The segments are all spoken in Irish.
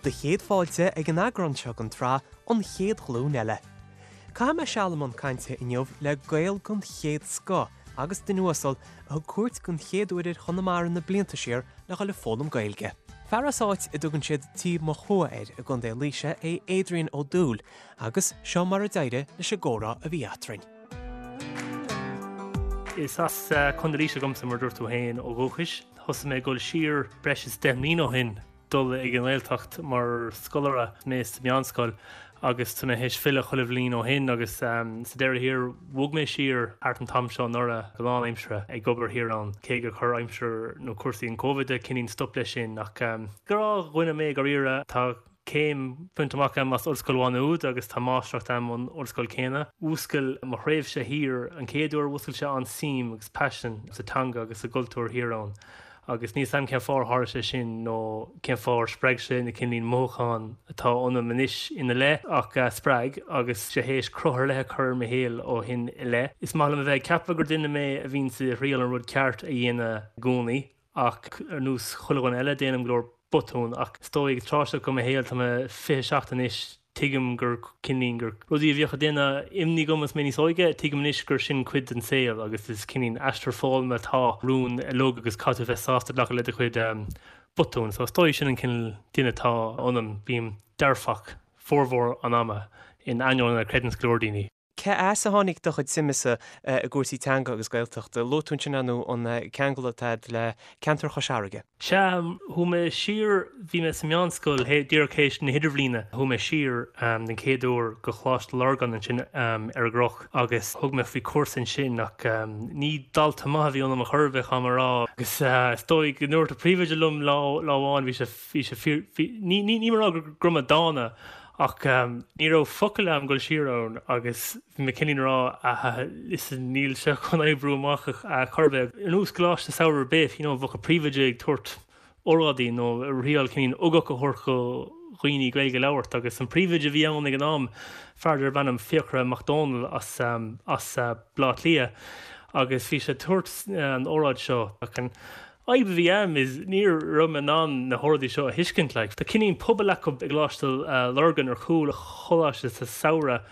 Do chéad fáilte ag an eagrán seo den tsraith An Chéad Ghlúin Eile. Caithfidh mé seal i mbun cainte inniu le Gael den chéad scoth agus duine uasal a thug cuairt den chéad uair ar Chonamara na blianta siar le dhul ag foghlaim Gaeilge. Fear as áit a dtugann siad Tír Mochua air i gContae Laoise é Adrian Ó Dúill agus seo mar a d'éirigh leis an gcomhrá a bhí eatrainn. Is as Contae Laoise dhomsa mar a dúirt tú féin ó dhúchais. Thosaigh mé ag dul siar breis is 10 mbliana ó shin. dul ag an nGaeltacht mar scoláire, mé sa meánscoil agus tá mé théis filleadh chuile bhliain ó shin agus sa deireadh thiar bhog mé siar thart an t-am seo anuraidh go lánaimseartha ag obair thiar ann cé gur chuir aimsir nó cúrsaí an Covid cineál stop leis sin ach gnáthdhuine mé dáiríre. Tá céim bainte amach agam as Ollscoil Mhá Nuad agus tá máistreacht agam ón ollscoil céanna. Mhúscail mo thréimhse thiar an chéad uair mhúscail sé an-suim agus paisean sa teanga agus sa gcultúr thiar ann. Agus níl 's a'm cén fáth ar tharla sé sin nó cén fáth ar spreag sé na cineál mothúcháin atá ionam anois ina leith ach spreag agus sé théis cruth ar leith a chur ar mo shaol ó shin i leith. Is maith liom a bheith ag ceapadh gur duine mé a bhíonns ag triail an rud ceart a dhéanamh i gcónaí ach ar nós chuile dhuine eile déanaim go leor botún ach is dóigh ag an tráth seo de mo shaol, tá mé 27 anois, tuigim gur cineál gur rudaí a bhíodh ag déanamh imní dhom is mé níos óige, tuigim anois gur sin cuid den saol agus is cineál aistear foghlama atá romhainn uilig agus caithfidh tú bheith sásta glacadh le do chuid botún. So is dóigh sin an cineál duine atá ionam, bím dearfach formhór an ama in ainneoin a chreideanns go leor daoine. Cé as a tháinig do chuid suime-sa i gcúrsaí teanga agus Gaeltachta? Luaigh tú ansin nó an ceangal atá agat le ceantar Chois Fharraige. Sea, chuaigh mé siar, bhí mé sa meánscoil díreach théis na hidirbhliana, chuaigh mé siar den chéad uair go Coláiste Lurgan ansin ar an gCnoc agus thug mé faoi chúrsa ansin ach ní dalta maith a bhí ionam a chor ar bith, caithfidh mé a rá. Agus is dóigh go ndúirt an príomhoide liom lá amháin, bhí sé, bhí sé fíor, bhí, ní, ní, níl mé ag rá go raibh mé dána ach ní raibh focal a'm dul siar ann agus bhí mé cineál ag rá ah listen níl sé chun oibriú amach a chor ar bith. Ar nós coláiste samhraidh ar bith, you know, bheadh an príomhoide ag tabhairt óráidí nó ag triail cineál ugach a thabhairt do dhaoine Gaeilge a labhairt agus an príomhoide a bhí ann ag an am, fear darb ainm Fiachra Mac Dónaill as as Baile Átha Cliath agus bhí sé ag tabhairt an óráid seo ach an fhadhb a bhí a'm is ní raibh mé in ann na hóráidí seo a thuiscint like. Tá cineál puball acu i gColáiste Lurgan ar chúl an choláiste sa samhradh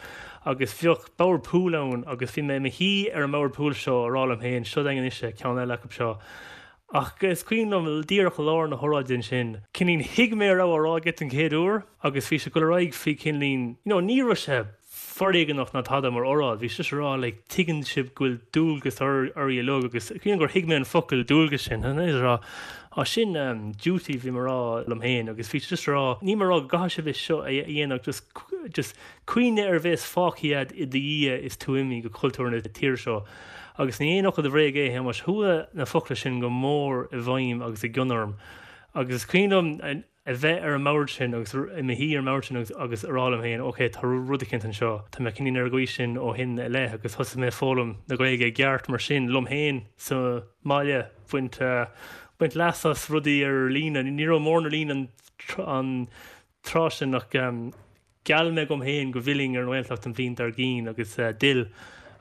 agus bheadh bord pool ann agus bhí mé i mo shuí ar an mbord pool seo a rá liom féin seo againn anois é, ceann eile acu seo. Ach is cuimhin liom díreach i lár na hóráide ansin, cineál thuig mé a raibh á rá aige den chéad uair agus bhí sé ag dul ar aghaidh faoi cineál, you know ní raibh sé foréigeanach ná tada mar óráid. Bhí sé just ag rá like tuigeann sibh go bhfuil dualgas oraibh uilig agus cuimhin gur thuig mé an focal dualgas sin and ag rá á sin um, duty bhí mé ag rá liom féin agus bhí sé just ag rá níl mé ag rá go gcaithfidh sibh é seo a dhéanamh just just cuimhnigh ar a bhéas fágtha agat i do dhiaidh is tú imithe go cultúr na tíre seo agus ní aon fhocal de bhréag é a Shéamais chuaigh na focla sin go mór i bhfeidhm agus i gcion orm agus is cuimhin liom a bheith ar an mbord sin agus i mo shuí ar an mbord sin agus agus a rá liom féin ok tá rud eicínt anseo, tá mé cineál ar an gcaoi sin ó shin i leith agus thosaigh mé ag foghlaim na Gaeilge i gceart mar sin liom féin sa mbaile, baint baint leas as rudaí ar líne, ní raibh mórán ar líne an an tráth sin ach Gheall mé dhom féin go bhfillfinn ar an nGaeltacht an bhliain dár gcionn agus d'fhill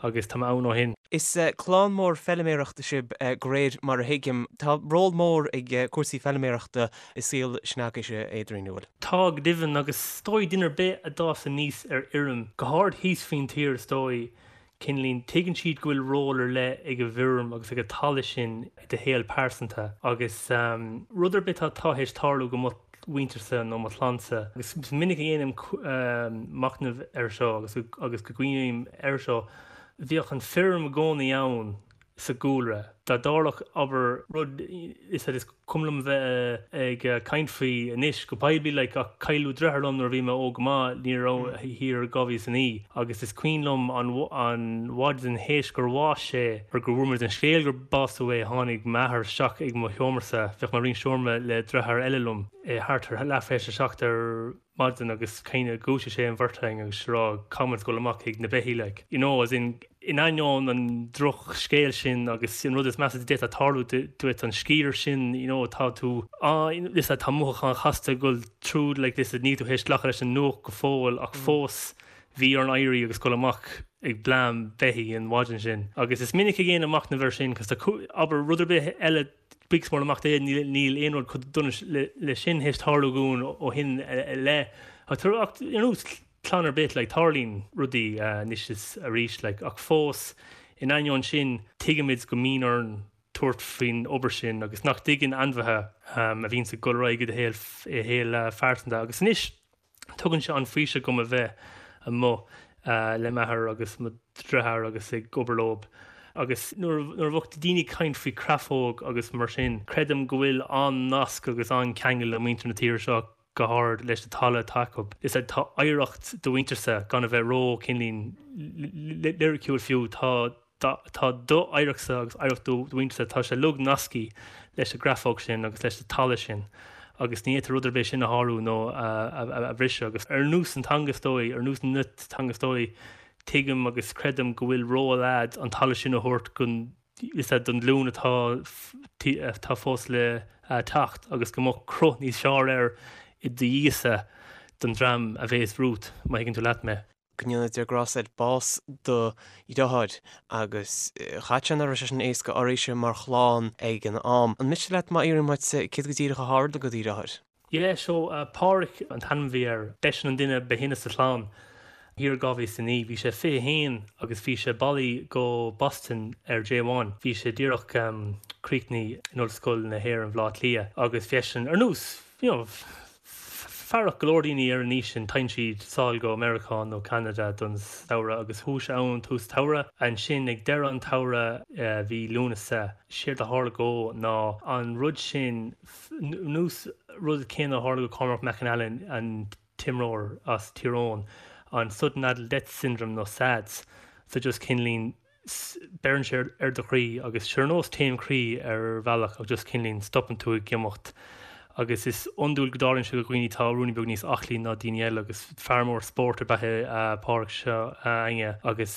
agus tá mé ann ó shin. Is clann mór feiliméarachta sibh de réir mar a thuigim. Tá ról mór ag cúrsaí feiliméarachta i saol s'agaibhse, Adrian, an bhfuil? Tá, go deimhin, agus is dóigh duine ar bith a d'fhás aníos ar fheirm, go háirid thíos faoin tír is dóigh, cineál, tuigeann siad go bhfuil ról ar leith ag an bhfeirm agus ag an talamh sin i do shaol pearsanta agus rud ar bith atá théis tarlú go mo mhuintirse nó mo chlannsa agus is minic a dhéanaim machnamh air seo agus agus go gcuimhním air seo, bhíodh an feirm i gcónaí ann sa gcúlra. Dá dtarlódh, abair, rud is is cuma liom bheith ag caint faoi anois go poiblí like ach cailleadh deartháir liom nuair a bhí mé óg go maith, ní raibh thiar 2009 agus is cuimhin liom an an mhaidin théis gur bhásaigh sé or go bhfuair muid an scéal gur básaíodh é tháinig m'athair isteach ag mo sheomrasa, bheadh mé ag roinnt seomra le deartháir eile liom, thart ar leath théis a 7 ar maidin agus kind of dhúisigh sé an bheirt againn agus ag rá caithfidh muid dul amach chuig na beithígh like you know as in in ainneoin an drochscéal sin agus an rud is measa a d'fhéadfadh tarlú duit an sciar sin you know tá tú á listen tá mothúcháin chasta ag dul tríd like listen níl tú théis glacadh leis an nuacht go fóill ach fós. Bhí orainn éirí agus dul amach ag bleán beithígh an mhaidin sin. Agus is minic ag déanamh machnamh air sin cos tá, abair, rud ar bith eile, buíochas mór le Mac Dé, níl aon rud chomh dona le sin théis tarlú dhúinn ó shin i leith. Ach ar nós clann ar bith, like, tarlaíonn rudaí anois is arís, like, ach fós, in ainneoin sin, tuigimid go mbíonn orainn tabhairt faoin obair sin agus nach dtuigeann ainmhithe a bhíonns ag dul ar aghaidh i do shaol phearsanta. Agus anois tugann sé an-fhaoiseamh dhom a bheith amuigh le m'athair agus mo dhriotháir agus ag obair leob. Agus nuair a bheadh daoine ag caint faoi chreafóg agus mar sin, creidim go bhfuil an-nasc agus an-cheangal le muintir na tíre seo go hard leis na talamh atá acu. Is ea, tá oidhreacht do mhuintirse, gan a bheith ró cineáilín liriciúil fiú, tá tá do oidhreachtsa agus oidhreacht do mhuintirse, tá sé uilig nasctha leis an gcreafóg sin agus leis an talamh sin agus ní fhéadtar rud ar bith sin a shárú nó a bhriseadh. Agus ar nós an teanga is dóigh, ar nós na teanga is dóigh, tuigim agus creidim go bhfuil ról a'd an talamh sin a thabhairt don is ea don ghlúin atá atá fós le teacht agus go mbeadh cruth níos fearr air i do dhiaidhse don dream a bhéas romhat, má thuigeann tú leat mé. Go ndéana Dia grásta air, bás do dhriotháir agus chaithfidh sé nach raibh sé sin éasca oraibhse mar chlann ag an am. An miste leat má fhiafraím uait céard go díreach a tharla do dheartháir? Yeah, so Páraic an t-ainm a bhí air. B'eisean an duine ba shine sa chlann. Thiar i 2009, bhí sé 21 agus bhí sé bailithe go Boston ar J1. Bhí sé díreach críochnaithe in Ollscoil na hÉireann Bhaile Átha Cliath agus bhí eisean ar nós, you know, fearach go leor daoine ar an aois sin, téann siad sall go Meiriceá nó Ceanada don samhradh agus chuaigh sé ann tús tsamhraidh. Ansin ag deireadh an tsamhraidh bhí Lúnasa, séard a tharla dhó ná an rud sin, nós rud céanna a tharla go Cormac McAnallen, an t-imreoir as Tír Eoghain, an Sudden Adult Death Syndrome nó SADS, so just cineáilín beireann sé ar do chroí agus sé ar nós taom croí ar bhealach ach just cineáilín stopann tú ag imeacht agus is iondúil go dtarlaíonn sé do dhaoine atá ruainnín beag níos aclaí ná daoine eile agus fear mór spóirt ab ea é Páraic seo againne agus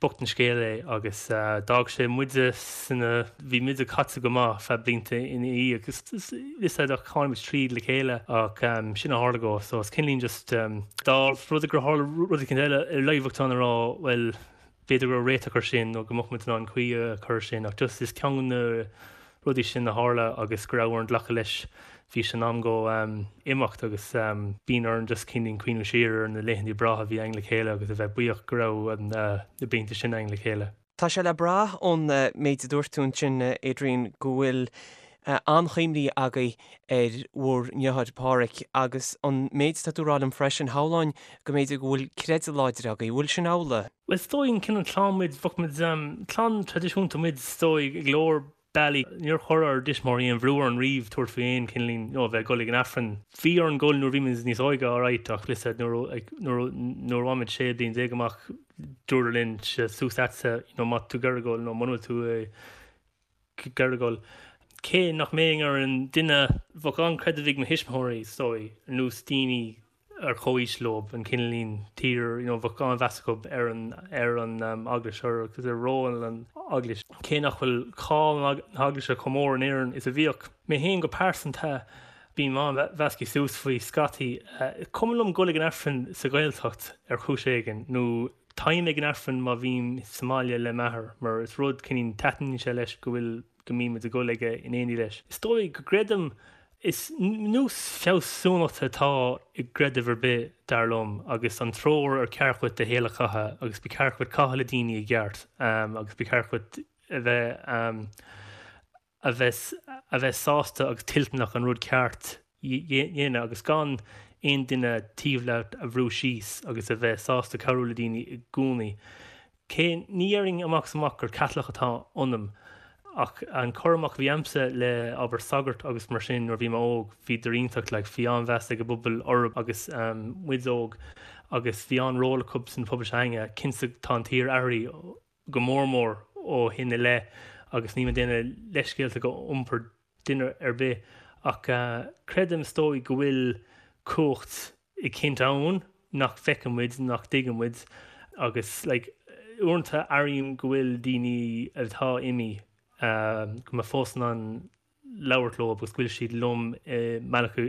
bocht an scéal é agus d'fhág sé muide sna bhí muide caite go maith feadh blianta ina dhiaidh agus is ea ach tháinig muid tríd le chéile ach sin a tharla dhó so is cineáilín just dá rud é gur tharla rud éicint eile ar leith bheadh tú in ann a rá bhuel b'fhéidir go raibh réiteach ar sin nó go mbeadh muid in ann caoi a chur ar sin ach just is ceann de na rudaí sin a tharla agus go raibh orainn glacadh leis bhí sé in am dhó imeacht agus bíonn orainn just cineáilín cuimhniú siar ar na laethanta breátha a bhí againn le chéile agus a bheith buíoch go raibh na blianta sin againn le chéile. Tá sé le brath ón méid a dúirt tú ansin, Adrian, go bhfuil an-chuimhní agaibh ar bhur ndriotháir Páraic agus an méid atá tú a rá liom freisin, shamhlóinn go mb'fhéidir go bhfuil creideamh láidir agaibh. Bhfuil sin amhlaidh? Bhuel, is dóigh an cineál clann muid, bheadh muid, clann traidisiúnta muid is dóigh i go leor bealaí. Níor chuir ár dtuismitheoirí aon bhrú orainn riamh tabhairt faoi aon cineáilín, you know, a bheith ag dul ag an Aifreann. Bhí orainn dul nuair a bhí muid níos óige, alright, ach listen, nuair, like, nuair, nuair a bhain muid 16 bliain amach, dúradar linn, suas leatsa, you know, má tá tú ag iarraidh dul nó muna bhfuil tú ag iarraidh dul. Cé nach mbeinn ar an duine, bheadh an-chreideamh ag mo thuismitheoirí, is dóigh, ar nós daoine ar comhaois leo, an cineáilín tír, you know, bheadh an-mheas acu ar an, ar an eaglais agus ar ról an eaglais. Cé nach bhfuil cáil na heaglaise chomh mór in Éirinn is a bhíodh. Mé féin go pearsanta, bím an-mheasctha suas faoi scaití. Is cuma liom dul ag an Aifreann sa Ghaeltacht ar chúis éigin, nó táim ag an Aifreann má bhím sa mbaile le m'athair, mar is rud cineáilín taitníonn sé leis go bhfuil, go mbímid ag dul aige in éindí leis. Is dóigh go gcreidim, is nós fealsúnachta atá i gcreideamh ar bith, dar liom, agus an treoir ar ceart dhuit do shaol a chaitheamh agus ba cheart dhuit caitheamh le daoine i gceart agus ba cheart dhuit a bheith a bheith a bheith sásta agus toilteanach an rud ceart dhéanamh agus gan aon duine taobh leat a bhrú síos agus a bheith sásta cabhrú le daoine i gcónaí. Cé, ní dhéarfainn amach is amach gur Caitliceach atá ionam, ach an cur amach a bhí a'msa le, abair, sagairt agus mar sin nuair a bhí mé óg, bhíodar iontach, like, bhí an-mheas ag an bpobal orthu agus muid óg agus bhí an-ról acu san phobal s'againne. Cinnte tá an tír athraithe go mór mór ó shin i leith agus níl mé ag déanamh leithscéalta go iompar duine ar bith ach creidim is dóigh go bhfuil cumhacht eicínt ann nach bhfeiceann muid, nach dtuigeann muid agus like uaireanta airím go bhfuil daoine atá imithe go mbeidh fós in ann labhairt leo agus go bhfuil siad liom i mbealach i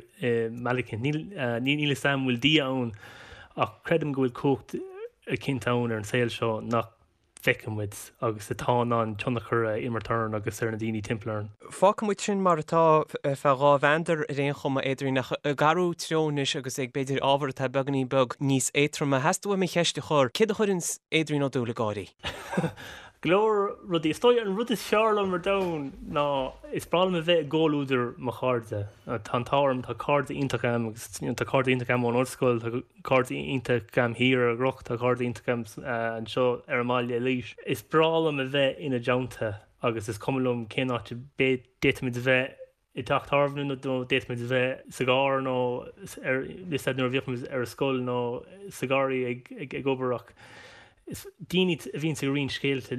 mbealach eicínt. Níl níl níl 'fhios a'm an bhfuil Dia ann. Ach creidim go bhfuil cumhacht eicínt ann ar an saol seo nach bhfeiceann muid agus atá in ann tionchar a imirt orainn agus ar na daoine timpeall orainn. Fágfaidh muid sin mar atá ar feadh dhá mheandar ar aon chuma, Adrian, ach ag athrú treo anois agus ag b'fhéidir ábhar atá beagáinín beag níos éadtroime, theastaigh uaim an cheist a chur, céard a chuireanns Adrian Ó Dúill ag gáirí? Go leor rudaí. Is dóigh an rud is fearr liom ar domhan ná is breá liom a bheith i gcomhluadar mo chairde. Tá an t-ádh orm, tá cairde iontach agam agus tá cairde iontach agam ón ollscoil, tá cairde iontach agam thiar ar an gCnoc, tá cairde iontach agam anseo ar an mbaile i Laois. Is breá liom a bheith ina dteannta agus is cuma liom cén áit a d'fhéadfaimid a bheith i dteach tábhairne nó d'fhéadfaimis a bheith sa gcarr nó ar is nuair a bhíodh muid ar an scoil nó sa gharraí ag ag obair ach is daoine a bhíonns ag roinnt scéalta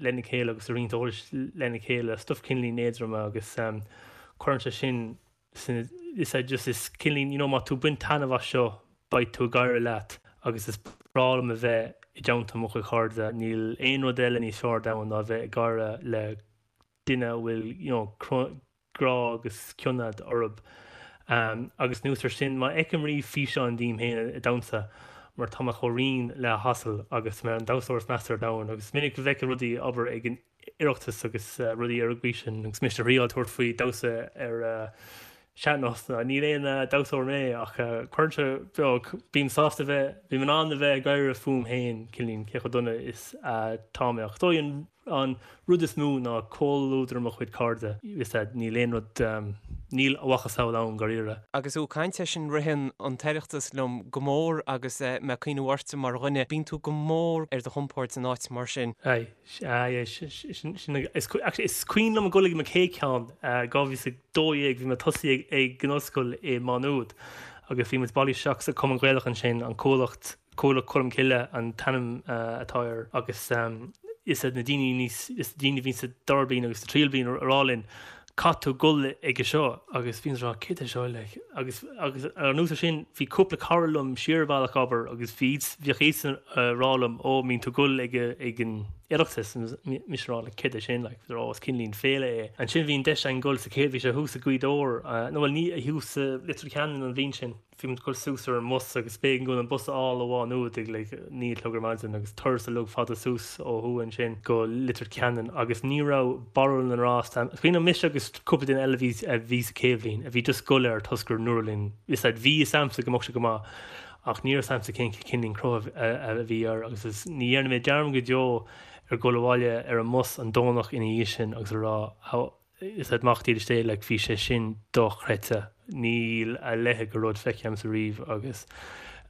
lena chéile agus ag roinnt eolais lena chéile, stuif cineáilín éadrom agus cuireann sé sin sin is é just is cineáilín you know má tú ag baint taitneamh as seo beidh tú ag gáire leat agus is breá liom a bheith i dteannta mo chuid cairde, níl aon rud eile níos fearr ar domhan ná a bheith ag gáire le duine a bhfuil you know grá agus cion agat orthu. Agus anuas ar sin, má fheicim riamh físeán díom féin ag damhsa, mar tá mé chomh righin le hasal agus mé an damhsóir is measa ar domhan agus is minic a bhfeicim rudaí abair ag an Oireachtas agus rudaí ar an gcaoi sin agus mise ag triáil tabhairt faoi damhsa ar sean-nós. Níl aon damhsóir mé ach cuireann sé beag, bím sásta bheith, bím in ann a bheith ag gáire fúm féin, cineáilín, cé chomh dona is atá mé ach is dóigh an An rud is mó ná comhluadar mo chuid cairde, is ea, níl aon rud, níl a mhacasamhail ann, dáiríre. Agus tú ag caint air sin, ritheann an tOireachtas liom go mór agus mé ag cuimhneamh ortsa mar dhuine, bíonn tú go mór ar do chompord in áit mar sin. Aye, aye, sin, sin, is, actually, is cuimhin liom ag dul ag mo chéad cheann, 2012, bhí mé tosaithe ag an ollscoil i Má Nuad agus bhí muid bailithe isteach sa Chumann Gaelach ansin, an Cuallacht, Cuallacht Cholm Cille an t-ainm atá air agus is iad na daoine níos, is na daoine a bhí sa dara bliain agus sa tríú bliain a rá linn caithfidh tú dul aige seo agus bhí muid ag rá céard é seo like agus agus anuas ar sin bhí cúpla cara liom siar an bealach abair agus bhí bhíodh iadsan a rá liom ó mbíonn tú ag dul ag ag an Oireachtas mise ag rá like céard é sin like ó is cineáilín féile é. Ansin bhí an deis againn dul sa chéad bhí sé thuas i Gaoth Dobhair nó bhuel ní thuas sa Leitir Ceanainn an bhliain sin. Bhí muid ag dul suas ar an mbus agus b'éigean dúinn an bus a fháil ó Mhá Nuad ag like 9 a chlog ar maidin agus turas uilig fada suas ó thuaidh ansin go Leitir Ceanainn agus ní raibh barúil na ngrást a'm. Is cuimhin liom mise agus cúpla duine eile a bhí a bhí sa chéad bhliain a bhí just ag dul air toisc gur ndúradh linn is ea bhí fhios a'msa go mbeadh sé go maith ach ní raibh fhios a'msa cén cineál cruth a a bhí air agus is ní dhéanfaidh mé dearmad go deo ar dhul abhaile ar an mbus an Domhnach ina dhiaidh sin agus a rá how Is ea mac dílis Dé like bhí sé sin dochreidte. Níl a leithéid de rud feicthe a'msa riamh agus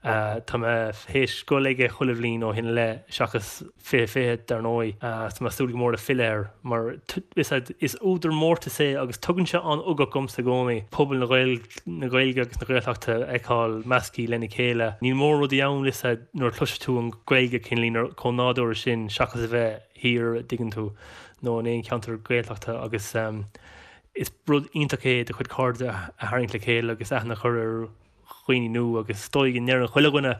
tá mé théis dul aige chuile bhliain ó shin i leith seachas 2020 dar ndóigh. Tá mé ag súil go mór le filleadh air mar is ea is údar mórtais é agus tugann sé an-ugach dhomsa i gcónaí pobal na na Gaeilge agus na Gaeltachta a fheiceáil measctha lena chéile. Níl mórán rudaí ann is ea nuair a chloiseann tú an Ghaeilge cineáilín chomh nádúrtha sin seachas a bheith thiar, an dtuigeann tú, nó in aon cheantar Gaeltachta agus is rud iontach é do chuid cairde a tharraingt le chéile agus aithne a chur ar dhaoine nua agus is dóigh go ndeireann chuile dhuine,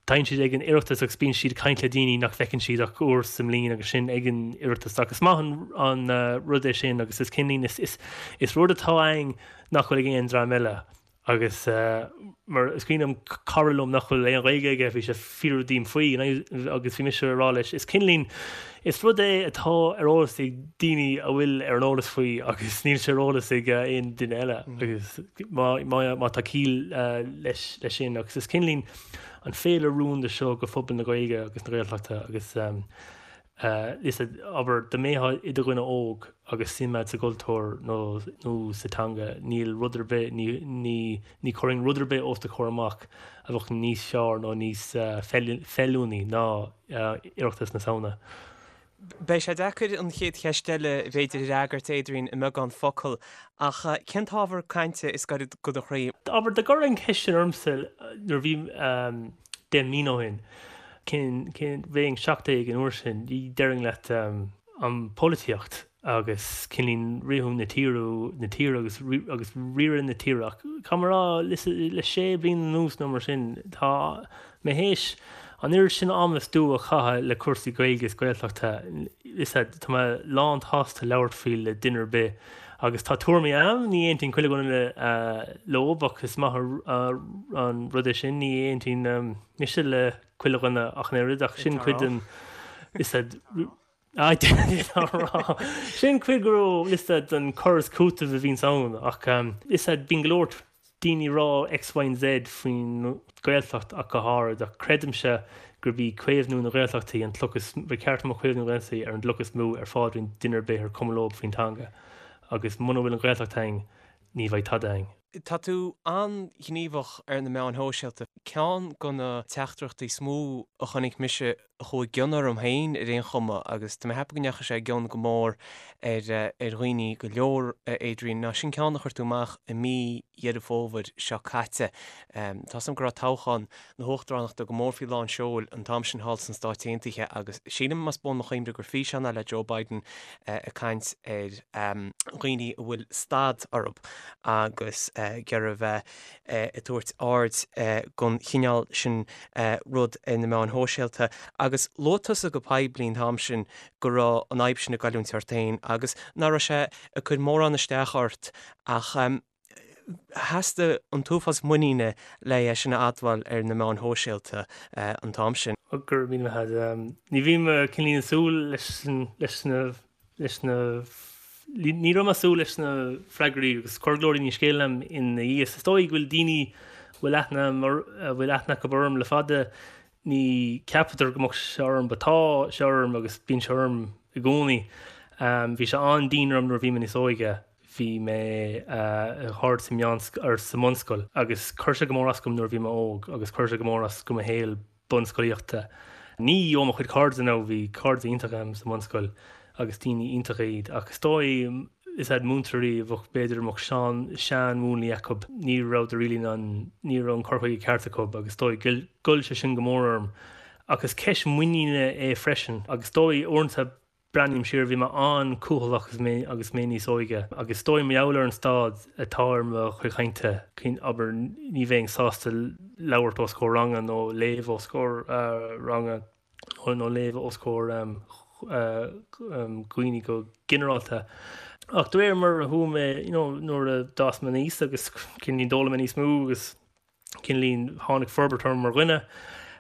téann siad ag an Oireachtas agus bíonn siad ag caint le daoine nach bhfeiceann siad ach uair sa mbliain agus sin ag an Oireachtas ach is maith an rud é sin agus is cineáilín is is rud atá againn nach bhfuil ag aon dream eile. Agus mar is cuimhin liom cara liom nach bhfuil aon Ghaeilge aige, bhí sé ag fiafraí díom faoi agus bhí mise ag rá leis, is cineáilín, is rud é atá ar eolas ag daoine a bhfuil ar an eolas faoi agus níl sé ar eolas ag aon duine eile agus má, má, má tá ciall leis, leis sin agus is cineáilín an féile rúnda seo do phobal na Gaeilge agus na Gaeltachta agus Is ea, abair, dá mbeifeá i do dhuine óg agus suim agat sa gcultúr nó nó sa teanga, níl rud ar bith, ní ní ní chuirfinn rud ar bith os do chomhair amach a bheadh níos fearr nó níos feiliúnaí ná Oireachtas na Samhna. Beidh sé deacair an chéad cheist eile, b'fhéidir, a fhreagairt, Adrian, i mbeagán focal, ach cén t-ábhar cainte is gaire do do chroí? Abair, dá gcuirfí an cheist sin ormsa nuair a bhí 10 mbliana ó shin, Cén, cén, bheinn 17 an uair sin, déarfainn leat an pholaitíocht agus cineáilín riathú na tíre, na tíre agus, agus riaradh na tíre ach caithfidh mé a rá le, le sé bliana anuas nó mar sin, tá mé théis an oiread sin ama is dua a chaitheamh le cúrsaí Gaeilge is Gaeltachta, is ea, tá mé lán tsásta labhairt faoi le duine ar bith. Agus tá tuairimí a'm, ní aontaíonn chuile dhuine leob ach is maith an rud é sin, ní aontaíonn mise le chuile dhuine ach an oiread ach sin cuid den, is Sin cuid go raibh liosta den cur is cúiteamh a bhíonns ann ach is bíonn go leor daoine ag rá X, Y and Z faoin Ghaeltacht ach go háirid ach creidimse gurb í caomhnú na Gaeltachtaí an chloch is ba cheart go mbeadh caomhnú na Gaeltachtaí ar an gcloch is mó ar phaidrín duine ar bith ar cuma leob faoin teanga agus muna bhfuil an Ghaeltacht a'inn ní bheidh tada a'inn. Tá tú an-ghníomhach ar na meáin shóisialta. Ceann de na teachtaireachtaí is mó a chonaic mise a chuaigh i gcion orm féin ar aon chuma, agus tá mé ag ceapadh go ndeachaigh sé i gcion go mór ar dhaoine go leor, a Adrian, ná sin ceann a chuir tú amach i mí Dheireadh Fómhair seo caite. Tá 's agam go raibh toghchán na huachtaránachta go mór faoi lán seoil an t-am sin thall sna Stáit Aontaithe agus sílim, más buan mo chuimhne, gur físeán é le Joe Biden ag caint ar dhaoine a bhfuil stad orthu agus ag iarraidh a bheith ag tabhairt aird don chineál sin rud ar na meáin shóisialta. Agus luaigh tusa go poiblí an t-am sin go raibh an fhadhb sin ag goilliúint ort féin agus nach raibh sé ag cur mórán isteach ort ach Theastaigh an t-uafás muiníne le é sin a admháil ar na meáin shóisialta an t-am sin. Go raibh míle maith agat. Ní bhí mé cineál ag súil leis leis na leis na ní raibh mé ag súil leis na freagraí agus chuir go leor daoine scéal liom ina dhiaidh. Is dóigh go bhfuil daoine a bhfuil aithne a bhfuil aithne acu orm le fada ní cheapadar go mbeadh sé orm but tá sé orm agus bíonn sé orm i gcónaí. Bhí sé an-dian orm nuair a bhí mé níos óige. Bhí mé thart sa meánscoil, or sa mbunscoil, agus chuir sé go mór as dom nuair a bhí mé óg agus chuir sé go mór as do mo shaol bunscolaíochta. Ní ó mo chuid cairde now, bhí cairde iontacha agam sa mbunscoil agus daoine iontacha iad, ach is dóigh is iad múinteoirí a bheadh, b'fhéidir, a mbeadh sean, seanmhúnlaí acu, ní rabhadar really in ann, ní raibh an cur chuige ceart acu agus is dóigh ghoill sé sin go mór orm. Ach is ceist muiníne é freisin agus is dóigh uaireanta, Breathnaím siar, bhí mé an-cúthaileach agus mé agus mé níos óige, agus is dóigh mar gheall ar an staid atá ar mo chuid chainte, abair, ní bheinn sásta labhairt os comhair ranga nó léamh os comhair ranga nó léamh os comhair dhaoine go ginearálta. Ach de réir mar a chuaigh mé, you know, nuair a d'fhás mé aníos agus cineál d'fhoghlaim mé níos mó agus cineál tháinig forbairt orm mar dhuine,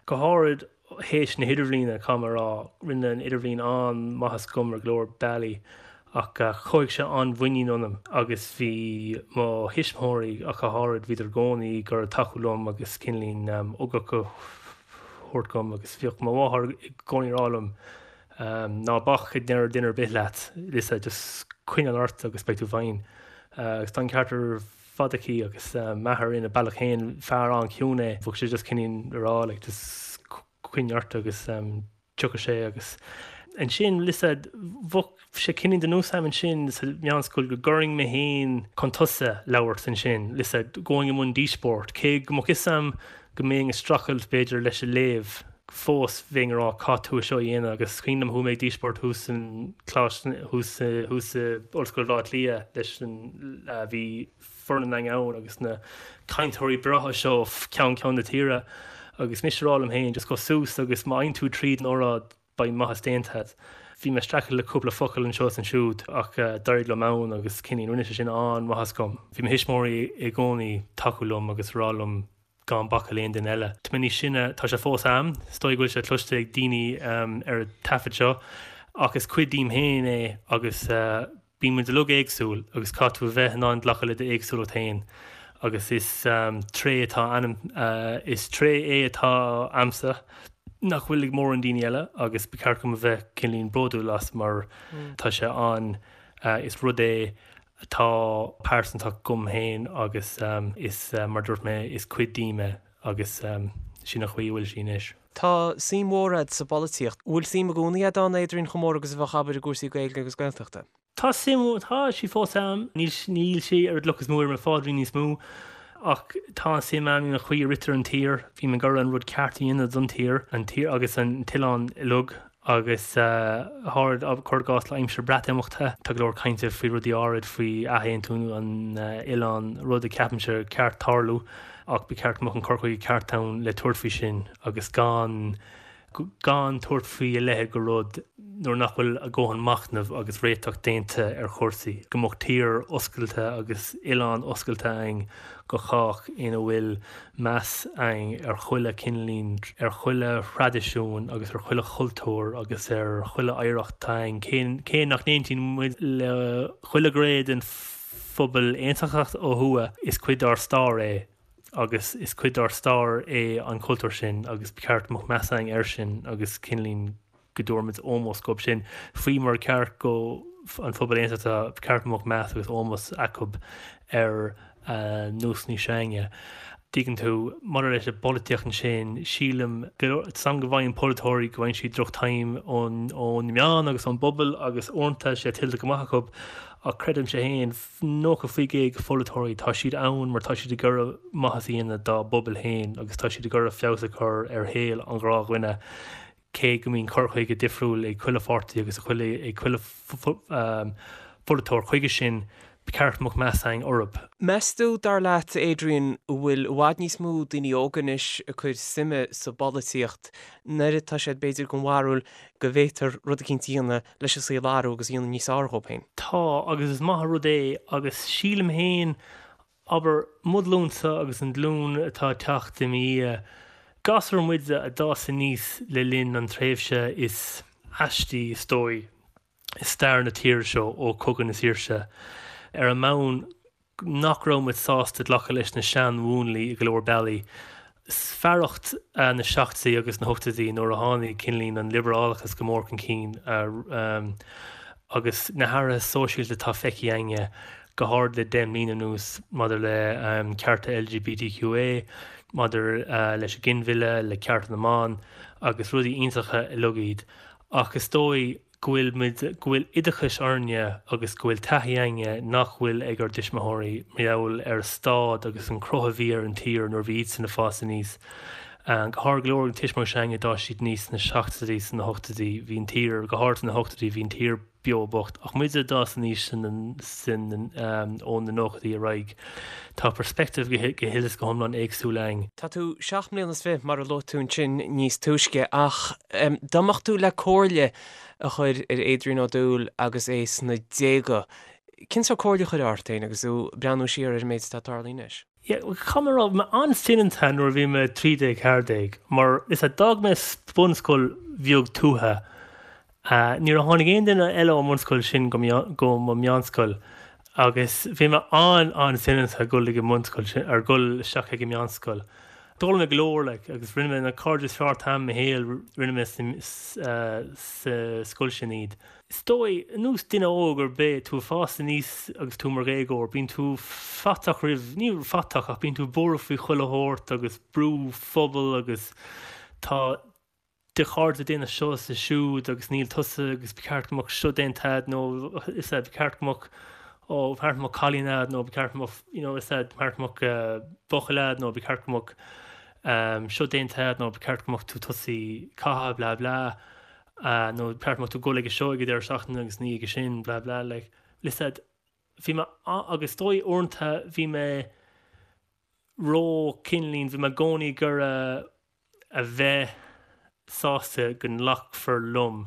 go háirid théis na hidirbhliana, caithfidh mé a rá. Rinne an idirbhliain an-mhaitheas dom ar go leor bealaí ach chothaigh sé an-mhuinín ionam agus bhí mo thuismitheoirí ach go háirid, bhíodar i gcónaí ag iarraidh tacú liom agus cineál ugach a thabhairt dom agus bhíodh mo mháthair i gcónaí ag rá liom ná bac a ndeir duine ar bith leat, Lisa, just coinneáil ort agus beidh tú fine. Agus tá an ceart ar fad aici agus m'athair ina bealach féin, fear an-chiúin é, bheadh sé just cineál ag rá like just coinnigh ort agus tiocfaidh sé agus ansin lisa bheadh sé cineál de nós agam ansin sa mheánscoil go gcuirfinn mé féin chun tosaigh labhairt ansin lisa going i mbun díospóireacht cé go mbeadh fhios agam go mbeinn ag streachailt b'fhéidir leis an léamh fós bheinn ag rá caithfidh tú é seo a dhéanamh agus is cuimhin liom chuaigh mé ag díospóireacht thuas san Coláiste thuas thuas i Ollscoil Bhaile Átha Cliath leis an bhí foireann againn ann agus na cainteoirí breátha seo ó cheann ceann na tíre agus mise ag rá liom féin just gabh suas agus má fhaigheann tú tríd an óráid beidh maitheas déanta agat. Bhí mé ag streachailt le cúpla focal anseo is ansiúd ach d'éirigh liom ann agus cineál rinne sé sin an-mhaitheas dom. Bhí mo thuismitheoirí i gcónaí tacú liom agus rá liom gan bacadh le aon duine eile. Tá mé níos sine, tá sé fós a'm, is dóigh go bhfuil sé cloiste ag daoine ar an taifead seo, ach is cuid díom féin é agus bíonn muid uilig éagsúil agus caithfidh tú a bheith in ann glacadh le d'éagsúlacht féin agus is tréith atá ionam, is tréith é atá a'msa nach bhfuil ag mórán daoine eile agus ba cheart dom a bheith cineáilín bródúil as mar tá sé an, is rud é atá pearsanta dom féin agus is, mar a dúirt mé, is cuid díom é agus sin an chaoi a bhfuil sí anois. Tá suim mhór a'd sa bpolaitíocht. Bhfuil suim i gcónaí a'd ann, Adrian, chomh mór agus a bheadh, abair, i gcúrsaí Gaeilge agus Gaeltachta? Tá suim, tá sí fós a'm. Níl, níl sé ar an gcloch is mó ar mo phaidrín níos mó ach tá an suim a'm in an chaoi a ritear an tír. Bím ag iarraidh an rud ceart a dhéanamh don tír, an tír agus an t-oileán uilig. Agus háirid, cuir i gcás le aimsir Breatimeachta, tá go leor cainte faoi rudaí áirid faoi athaontú an oileáin, rud a ceapaimse ar cheart tarlú ach ba cheart go mbeadh an cur chuige ceart ann le tabhairt faoi sin agus gan. Gan tabhairt faoi a leithéid de rud nuair nach bhfuil a dhóthain machnaimh agus réiteach déanta ar chúrsaí. Go mbeadh tír oscailte agus oileán oscailte againn go chách ina bhfuil meas againn ar chuile cineáilín, ar chuile thraidisiún agus ar chuile chultúr agus ar chuile oidhreacht atá againn, cé nach n-aontaíonn muid le chuile ghné den phobal aontachtach ó thuaidh, is cuid dár stair é agus is cuid dár stair é an cultúr sin agus ba cheart go mbeadh meas againn air sin agus cineáilín go dtabharfaimid ómós dhóibh sin, faoi mar ceart go an phobal aontachtach, ba cheart go mbeadh meas agus ómós acu ar nósanna s'againne. Tuigeann tú, maidir leis an bpolaitíocht ansin, sílim, tá a fhios agam go bhfaigheann polaiteoirí, go bhfaigheann siad droch-time ón na meáin agus ón bpobal agus uaireanta tá sé tuillte go maith acu ach creidimse féin, 90% de pholaiteoirí, tá siad ann mar tá siad ag iarraidh maitheas a dhéanamh dá bpobal féin agus tá siad ag iarraidh feabhas a chur ar shaol an ghnáthdhuine. Cé go mbíonn cur chuige difriúil ag chuile pháirtí agus ag chuile pholaiteoir chuige sin, ba cheart go mbeadh meas againn orthu. Meas tú, dar leat, Adrian, an bhfuil i bhfad níos mó daoine óga anois ag cur suime sa bpolaitíocht nuair atá siad b'fhéidir den bharúil go bhféadfar rud eicínt a dhéanamh leis an saol a athrú agus a dhéanamh níos fearr dhóibh féin? Tá, agus is maith an rud é, agus sílim féin Abair, mo ghlúinsa agus an ghlúin atá ag teacht i mo dhiaidh, gasúir muide a d'fhás aníos le linn an tréimhse is aistí, is dóigh, i stair na tíre seo ó Chogadh na Saoirse, ar an mbonn nach raibh muid sásta glacadh leis na seanmhúnlaí i go leor bealaí. Fearacht na seachtóidí agus na hochtóidí nuair a tháinig cineáilín an liobrálachas go mór chun cinn agus na hathruithe sóisialta atá feicthe againne, go háirid le 10 mbliana anuas maidir le cearta LGBTQA, maidir leis an ghinmhilleadh, le cearta na mban agus rudaí iontacha uilig iad. Ach is dóigh go bhfuil muid, go bhfuil oideachas orainne agus go bhfuil taithí againne nach bhfuil ag ár dtuismitheoirí mar gheall ar an staid agus an cruth a bhí ar an tír nuair a bhí iadsan ag fás aníos. Go háirid go leor de na tuismitheoirí s'againne d'fhás siad aníos sna seachtóidí, sna hochtóidí, bhí an tír, go háirid sna hochtóidí, bhí an tír beo bocht. Ach muide a d'fhás aníos ó na nóchaidí ar aghaidh, tá perspective go huile is go hiomlán éagsúil againn. Tá tú seacht mbliana is fiche, mar a luaigh tú ansin níos túisce, ach dá mbeadh tú le comhairle a chur ar Adrian Ó Dúill agus é sna déaga, cén sórt comhairle a chuirfeá ort féin agus tú ag breathnú siar ar an méid atá tarlaithe anois? Yeah, caithfidh mé a rá, bhí mé an-soineanta nuair a bhí mé 13, 14, mar is ea, d'fhág mé bunscoil bheag tuaithe. Níor tháinig aon duine eile ón mbunscoil sin go go mo mheánscoil agus bhí mé an-an-soineanta ag dul ag an mbunscoil sin, ar dhul isteach ag an meánscoil. D'fhoghlaim mé go leor like agus rinne mé na cairde is fearr atá a'm i mo shaol, rinne mé sa scoil sin iad. Is dóigh, ar nós duine óg ar bith, tú ag fás aníos agus tú mar dhéagóir, bíonn tú faiteach roimh, ní faiteach ach bíonn tú buartha faoi chuile shórt agus brú phobail agus tá do chairde ag déanamh seo is siúd agus níl tusa agus ba cheart go mbeadh seo déanta a'd nó is ea ba cheart go mbeadh ó ba cheart go mbeadh cailín a'd nó ba cheart go mbeadh you know is ea ba cheart go mbeadh buachaill a'd nó ba cheart go mbeadh seo déanta a'd nó ba cheart go mbeadh tú tosaithe caitheamh blah blah. nó ba cheart go mbeadh tú ag dul ag seo ag an deireadh seachtaine agus ní ag sin blah blah like listen bhí mé agus is dóigh uaireanta bhí mé ró cineáilín bhí mé i gcónaí ag iarraidh a bheith sásta go nglacfar liom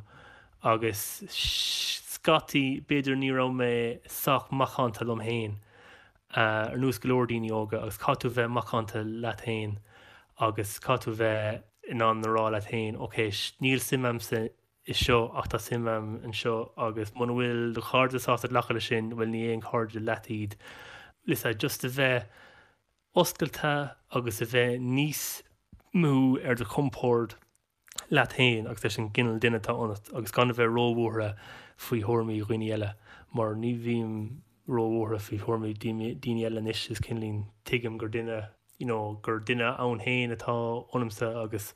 agus scaití b'fhéidir ní raibh mé sách macánta liom féin ar nós go leor daoine óga agus caithfidh tú bheith macánta leat féin agus caithfidh tú bheith in ann a rá leat féin, ok, níl suim a'msa i seo ach tá suim a'm anseo agus muna bhfuil do chairde sásta glacadh leis sin, bhuel ní aon chairde leat iad. Listen, just a bheith oscailte agus a bheith níos mó ar do chompord leat féin agus leis an gcineál duine atá ionat agus gan a bheith róbhuartha faoi thuairimí dhaoine eile mar ní bhím róbhuartha faoi thuairimí daoine eile anois is cineáilín tuigim gur duine you know gur duine ann féin atá ionamsa agus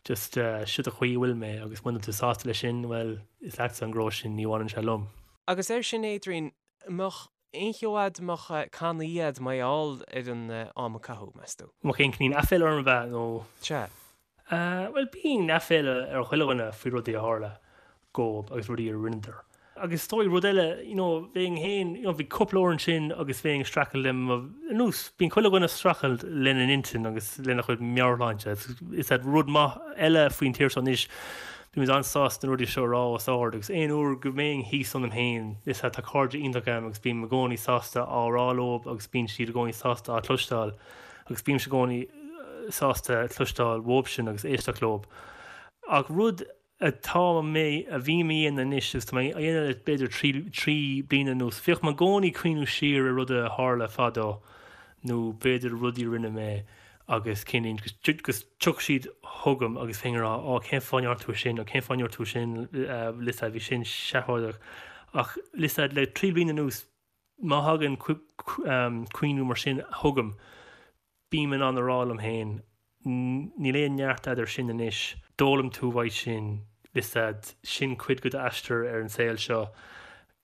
just siod an chaoi a bhfuil mé agus muna bhfuil tú sásta leis sin bhuel is leatsa an gnó sin ní bhaineann sé liom. Agus air sin Adrian, an mbeadh aon cheo a'd, an mbeadh cannaí a'd mar gheall ar an am a caitheadh, meas tú? An mbeadh aon cineál aiféala orm ab ea nó? Sea. Bhuel bíonn aiféala ar chuile dhuine faoi rudaí a tharla dhóibh agus rudaí a rinneadar. Agus is dóigh rud eile, you know, bheinn féin, you know, bhí cúpla uair ansin agus bheinn ag streachailt le mo, ar nós, bíonn chuile dhuine ag streachailt lena n-intinn agus lena chuid meabhairshláinte. Is é rud maith eile faoin tír seo anois, bímid an-sásta na rudaí seo a rá os ard agus aon uair go mbeinn thíos ionam féin, is ea tá cairde iontach agam agus bím i gcónaí sásta á rá leo agus bíonn siad i gcónaí sásta á cloisteáil agus bímse i gcónaí sásta cloisteáil uaibhsean agus éisteacht leo. Ach rud atá mé, a bhím a dhéanamh anois agus tá mé á dhéanamh le b'fhéidir trí bliana anuas, bhíodh mé i gcónaí ag cuimhniú siar ar rudaí a tharla fadó nó b'fhéidir rudaí a rinne mé agus cinn agus tiocfaidh siad chugam agus bheinn ag rá 'Ó cén fáth a ndearna tú sin nó cén fáth a ndúirt tú sin listen bhí sin seafóideach' ach listen le trí bliana anuas má thagann cuimhniú mar sin chugam Bím in ann a rá liom féin, níl aon neart a'd air sin anois, d'fhoghlaim tú uaidh sin, listen, sin cuid de d'aistear ar an saol seo,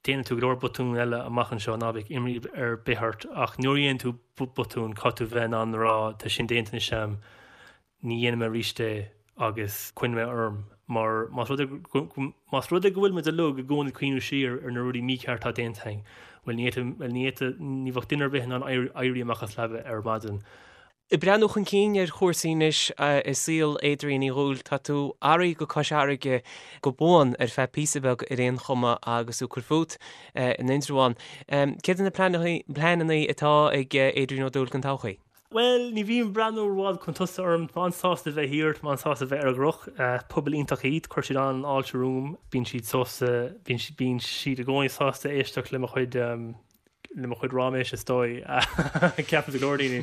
déanfaidh tú go leor botún eile amach anseo, ná bíodh imní ar bith ort, ach nuair a dhéanann tú botún, caithfidh tú bheith in ann a rá, tá sin déanta anois a'm, ní dhéanfaidh mé arís é agus coinneoidh mé orm mar más rud é más rud é go bhfuil muid uilig i gcónaí ag cuimhniú siar ar na rudaí mícheart atá déanta againn, bhuel ní fhéadfadh, bhuel ní fhéadfadh, ní bheadh duine ar bith in ann éirí amach as leaba ar maidin. Ag breathnú chun cinn ar chúrsaí anois i saol Adrian Uí Dhúill, tá tú athraithe go Cois Fharraige go buan ar feadh píosa beag ar aon chuma agus tú ag cur fút in Indreabhán. Céard iad na pleananna atá ag Adrian Ó Dúill don todhchaí? Bhuel, ní bhím ag breathnú rófhada chun tosaigh orm. Tá mé an-sásta bheith thiar, tá mé an-sásta bheith ar an gCnoc. Pobal iontach iad, cuir siad an-fháilte romham. Bíonn siad sásta, bíonn siad, bíonn siad i gcónaí sásta éisteacht le mo chuid, le mo chuid ráiméis is dóigh. Ceapaim go leor daoine.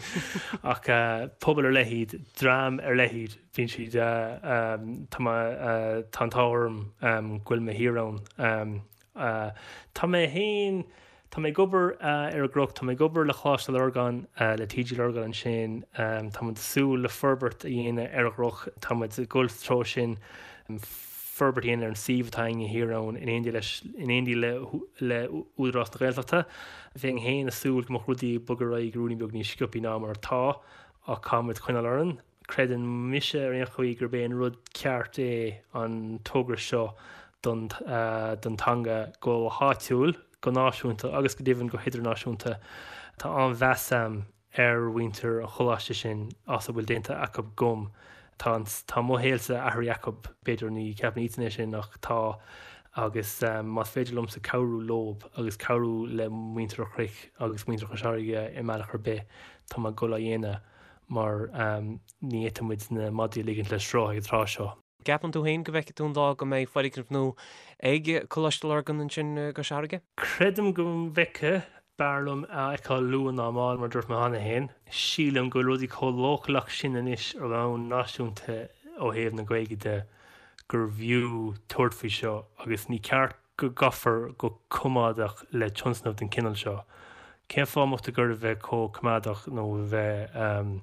Ach pobal ar leith iad, dream ar leith iad. Bíonn siad, tá mé, tá an t-ádh orm go bhfuil mé thiar ann. Tá mé féin, tá mé ag obair ar an gCnoc, tá mé ag obair le Coláiste Lurgan, le TG Lurgan ansin, tá muid ag súil le forbairt a dhéanamh ar an gCnoc, tá muid ag dul sa treo sin, forbairt a dhéanamh ar an suíomh atá againne thiar ann in éindí leis, in éindí le le Údarás na Gaeltachta. Bheinn féin ag súil go mbeadh rudaí ag bogadh ar aghaidh ruainnín beag níos sciobthaí ná mar atá ach caithfidh muid coinneáil orainn. Creideann mise ar aon chaoi gurb é an rud ceart é an togra seo don don teanga go háitiúil, go náisiúnta agus go deimhin go hidirnáisiúnta. Tá an-mheas a'm ar mhuintir an choláiste sin as a bhfuil déanta acu dhom. Tá an tá mo shaolsa athraithe acu, b'fhéidir ní cheapann iadsan é sin ach tá agus más féidir liomsa cabhrú leob agus cabhrú le muintir an Chnoic agus muintir Chois Fharraige i mbealach ar bith tá mé ag dul á dhéanamh. mar ní fhéadfaidh muid na madraí a ligint le sruth ag an tráth seo. Ceapann tú féin go bhfeicfidh tú an lá go mbeidh foirgneamh nua ag Coláiste Lurgan ansin i gCois Fharraige? Creidim go bhfeicfidh. B'fhearr liom a fheiceáil luath ná mall, mar a dúirt mé cheana féin. Sílim go bhfuil rudaí chomh leochaileach sin anois ar bhonn náisiúnta ó thaobh na Gaeilge de gurbh fhiú tabhairt faoi seo agus ní ceart go gcaithfear go coimeádach le tionscnamh den chineál seo. Cén fáth a mbeadh tú ag iarraidh a bheith chomh coimeádach nó a bheith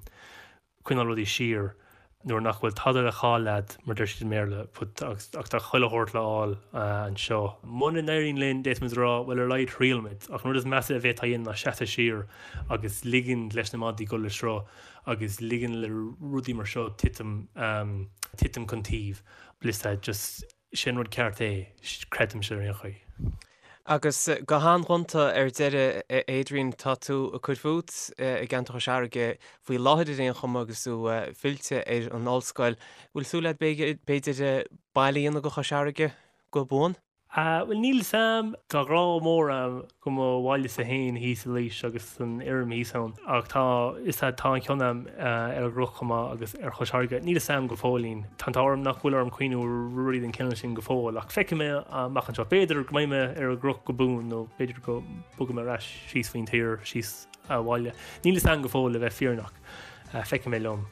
coinneáil rudaí siar nuair nach bhfuil tada le cailleadh, mar deir siad i mBéarla, but ach tá chuile shórt le fháil anseo. Muna n-éiríonn linn, d'fhéadfaimis a rá, bhuel ar a laghad thriail muid. Ach an rud is measa a bhféadfá a dhéanamh ná seasamh siar agus ligean leis na madraí dul le sruth agus ligean le rudaí mar seo titim titim chun taoibh. Listen, just Sé an rud ceart é, creidimse ar aon chaoi. Agus go han-ghonta ar deireadh, a Adrian, tá tú ag cur fút i gceantar Chois Fharraige faoi láthair ar aon chuma agus tú fillte ar an ollscoil. Bhfuil súil agat b'fhéidir baile a dhéanamh de Chois Fharraige go buan? Bhuel, níl 'fhios a'm. Tá grá mór a'm do mo bhailese féin thíos i Laois agus an fheirm thíos ann ach tá, is ea, tá an-chion a'm ar an gCnoc chomh maith agus ar Chois Fharraige. Níl 'fhios a'm go fóillín. Tá an t-ádh orm nach bhfuil orm cuimhniú ar rudaí den chineál sin go fóill ach feicfidh mé amach anseo. B'fhéidir go mbeidh mé ar an gCnoc go buan nó b'fhéidir go mbogfaidh mé ar ais síos faoin tír, síos abhaile. Níl 'fhios a'm go fóill le bheith fírinneach. Feicfidh mé liom.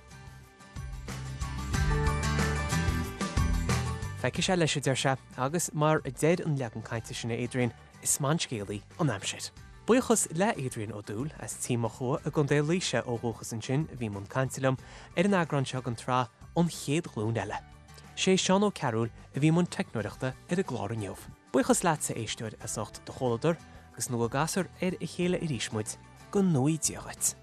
Feicfidh sé leis, a deir sé, agus mar a deir an leagan cainte sin, a Adrian, is maith an scéalaí an aimsir. Buíochas le Adrian Ó Dúill as Tí Mochua i gContae Laoise ó dhúchas ansin a bhí i mbun cainte liom ar an eagrán seo den tsraith An Chéad Ghlúin Eile. Sé Seán Ó Cearúil a bhí i mbun teicneoireachta ar an gclár inniu. Buíochas leatsa, a éisteoir, as ucht do chomhluadar agus nó go gcasfar ar a chéile arís muid, go ngnóthaí Dia dhuit.